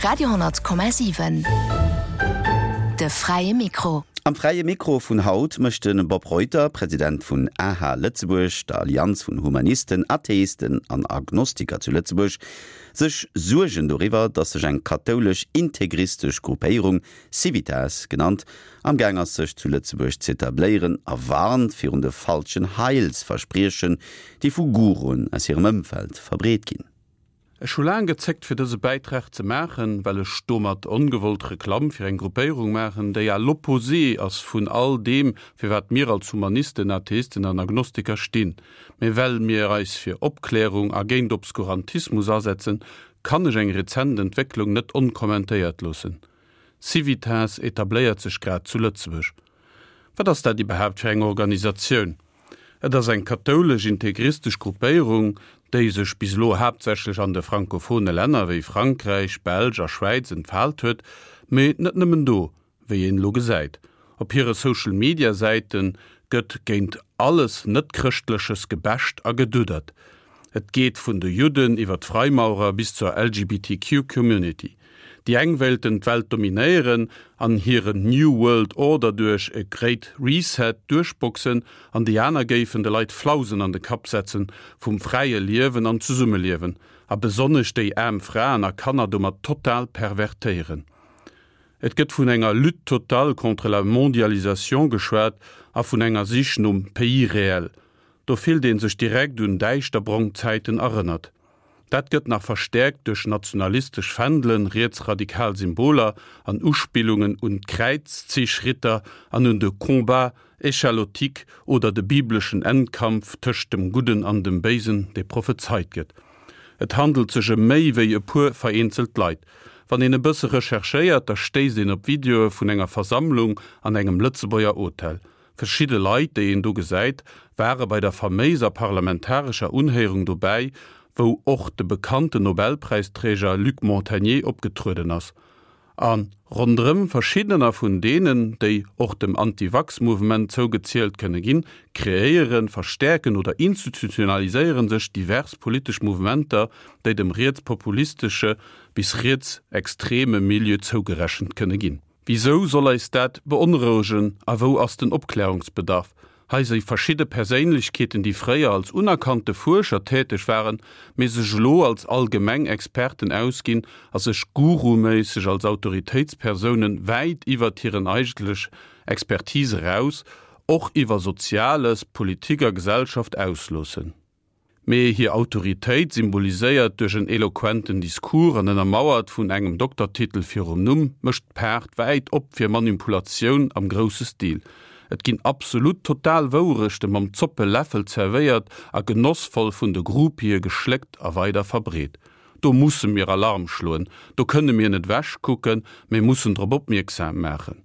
Radio,7 De fräie Mikro. Am Fräie Mikro vun haut mécht de Bob Reuter, President vun aha Lëtzebuerg, der Allianz vun Humanisten, Atheisten an Agnostiker zu Lëtzebuerg, sech Suergen doriwwer, datt sech eng kathoulesch integristesch Gruppéierung, Civitas genannt, am Gaang ass sech zu Lëtzebuerg z'etabléieren a warnt virun de falschen Heilsverspriechen, déi vu Guruen aus hirem Ëmfeld verbreet ginn. Ech hu laang gezéckt fir dëse Bäitrag ze maachen, well ech domat ongewollt Reklamm fir eng Gruppéierung maachen, déi à l'opposé ass vun all deem, fir wat mir als Humanisten, Atheisten an Agnostiker stinn. Mee well mir eis fir Opklärung a géint Obskurantismus asetzen, kann ech eng rezent Entwécklung net onkommentéiert loossen. Civitas etabléiert sech grad zu Lëtzebuerg. Wat ass dat iwwerhaapt fir eng Organisatioun? Et ass eng kathoulesch-integristesch Gruppéierung, déi sech bis elo haaptsächlech an de frankophone Länner wéi Frankräich, Belsch a Schwäiz entfaalt huet, mee net nëmmen do, wéi een elo gesäit. Op hire Social-Media-Säite gëtt géint alles Net-Chrëschtleches gebasht a geduddert. Et geet vun de Judden iwwer d'Freimaurer bis zur LGBTQ-Community. Déi eng wéilten d'Welt dominéieren an hiren New World Order duerch e Great Reset duerchboxen an déi aner géifen de Leit Flausen an de Kapp setzen vum fräie Liewen an Zesummeliewen a besonnesch déi aarm Fraen a Kanner domat total pervertéieren. Et gëtt vun enger Lutte totale contre la mondialisation geschwat a vun enger Sich nom Pays réel. Do fillt ee sech direkt un däischterbrong Zäiten erënnert. Dat gëtt nach verstäerkt duerch nationalistesch Fändelen, rietsradikal Symboler an Uspillungen un d'Kräizzichritter an un de Combat échalotique oder de bibleschen Endkampf tëscht dem Gudden an dem Béisen, dee prophezeit gëtt. Et handelt sech ëm méi wéi e puer vereenzelt Leit. Wann een e bësse recherchéiert, da stéisst een op Videoe vun enger Versammlung an engem Lëtzebuerger Hotel. Verschidde Leit, déi een do gesäit, ware bei der faméiser parlamentarescher Unhéierung dobäi, wou och de bekannten Nobelpräisträger Luc Montagnier opgetrueden ass. A ronderëm verschiddener vun deenen, déi och dem Anti-Vax-Mouvement zougezielt kënne ginn, kreéieren, verstäerken oder institutionaliséiere sech divers politesch Mouvementer, déi dem rietspopulistesche bis rietsextreme Milieu zougerechent kënne ginn. Wisou soll eis dat beonrouegen a wou ass den Opklärungsbedarf? Hei si verschidde Perséinlechkeeten, déi fréier als unerkannte Fuerscher täteg waren, mee sech elo als allgemeng Experten ausginn a sech guruméisseg als Autoritéitspersounen wäit iwwert hiren eigentlech Expertise eraus och iwwer Soziales, Politik a Gesellschaft ausloossen. Mee hir Autoritéit, symboliséiert duerch en eloquenten Discours an ënnermauert vun engem Doktertitel virum Numm, mécht d'Paart wäit op fir Manipulatioun am grousse Stil. Et ginn absolut total Wouerechte mam Zoppeläffel zerwéiert a genossvoll vun de Groupië geschléckt a weider verbreet. Do musse mir Alarm schloen, do kënne mir net wechkucken, mee mussen drop opmierksam maachen.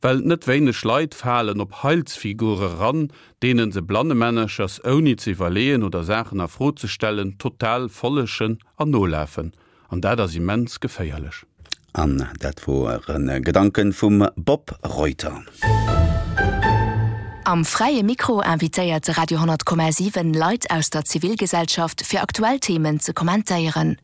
Well net wéineg Leit falen op Heilsfigure ran, deenen se blannemännerchers ouni ze iwwerleeën oder Saachen a Fro ze stellen total follegen an nolafen. An dat ass immens geféierlech. An dat woren Gedanken vum Bob Reuter. Am Fräie Mikro invitéiert de Radio 10,7 Leit aus der Zivilgesellschaft fir aktuell Themen ze kommentéieren.